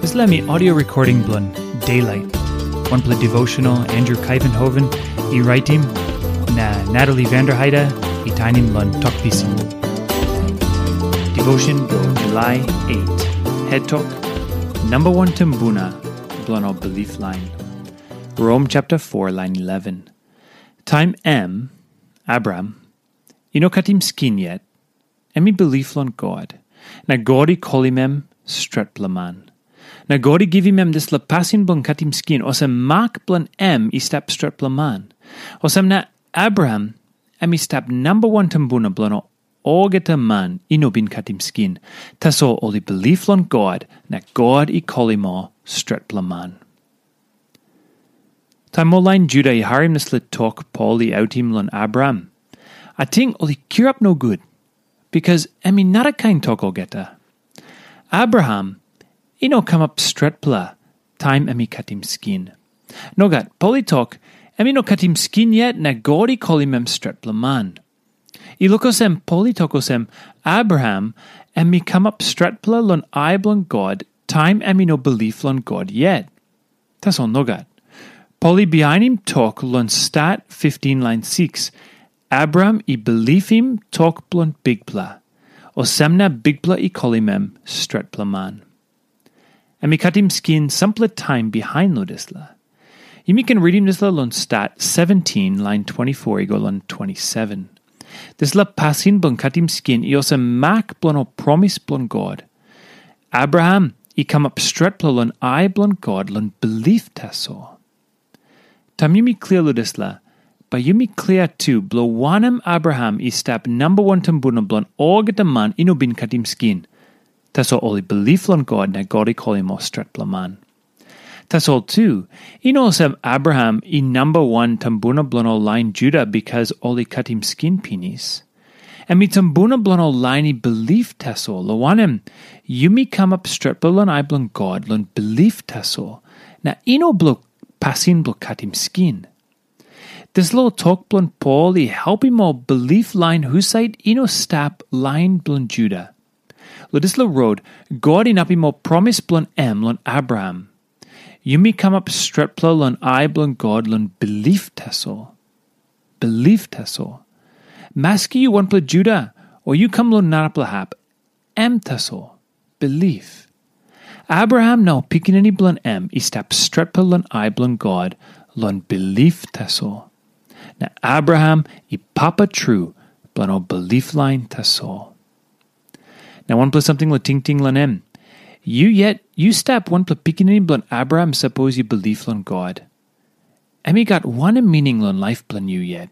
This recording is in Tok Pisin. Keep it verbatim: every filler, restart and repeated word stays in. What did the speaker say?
Dispela mi audio recording bilong Daylight, wanpela devotional Andrew Kaivenhoven i raitim, na Natalie Vanderheide i tainim long Tok Pisin. Devotion bilong July eight, Het Tok, Namba Wan Tumbuna bilong ol Bilip Lain. Rom chapter four, line eleven. Taim em, Abraham, i no katim skin yet, em i bilip long God, na God i kolim em stretpela man. Na God i givim em dispela pasin bilong katim skin, olsem mak bilong em i stap stretpela man. Olsem na Abraham em i stap namba wan tumbuna bilong olgeta man i no bin katim skin. Tasol ol i bilip long God, na God i kolim ol stretpela man. Taim ol lain Juda i harim dispela tok Pol i autim long Abraham, ating ol i kirap nogut, bikas em i narakain tok olgeta. Abraham i no kamap stretpela taim em i katim skin. Nogat, Pol i tok, em i no katim skin yet na God i kolim em stretpela man. I luk olsem Pol i tok olsem, Abraham em i kamap stretpela long ai bilong God taim em i no bilip long God yet. Tasol nogat. Pol i bihainim tok long Stat fifteen lain six, Abraham i bilipim tok bilong Bikpela, olsem na Bikpela i kolim em stretpela man. Em i katim skin sampela taim bihain long dispela. Yumi ken ritim dispela long Stat seventeen lain twenty-four i go long twenty-seven. Dispela pasin bilong katim skin i olsem mak bilong ol promis bilong God. Abraham i kamap stretpela long ai bilong God long bilip tasol. Taim yumi klia long dispela, bai yumi klia tu bilong wanem Abraham i stap namba wan tumbuna bilong olgeta man i no bin katim skin. Tasol ol i bilip long God na God i kolim ol stretpela man. Tasol tu, i no olsem Abraham i namba wan tumbuna bilong ol lain Juda bikas ol i katim skin pinis. Em i tumbuna bilong ol lain i bilip tasol, long wanem, yumi kamap stretpela long ai bilong God long bilip tasol, na i no bilong pasin bilong katim skin. Dispela tok bilong Pol i helpim ol bilip lain husat i no stap lain bilong Juda. Long dispela rot, God inapim ol promis bilong em long Abraham. Yumi kamap stretpela long ai bilong God long bilip tasol. Bilip tasol. Maski yu wanpela Juda, o yu kam long narapela hap, em tasol. Bilip. Abraham na ol pikinini bilong em i stap stretpela long ai bilong God long bilip tasol. Na Abraham i papa tru bilong ol bilip lain tasol. Na wanpela samting long tingting long em. Yu yet, yu stap wanpela pikinini bilong Abraham sapos yu bilip long God. Em i gat wanem mining long laip bilong yu yet?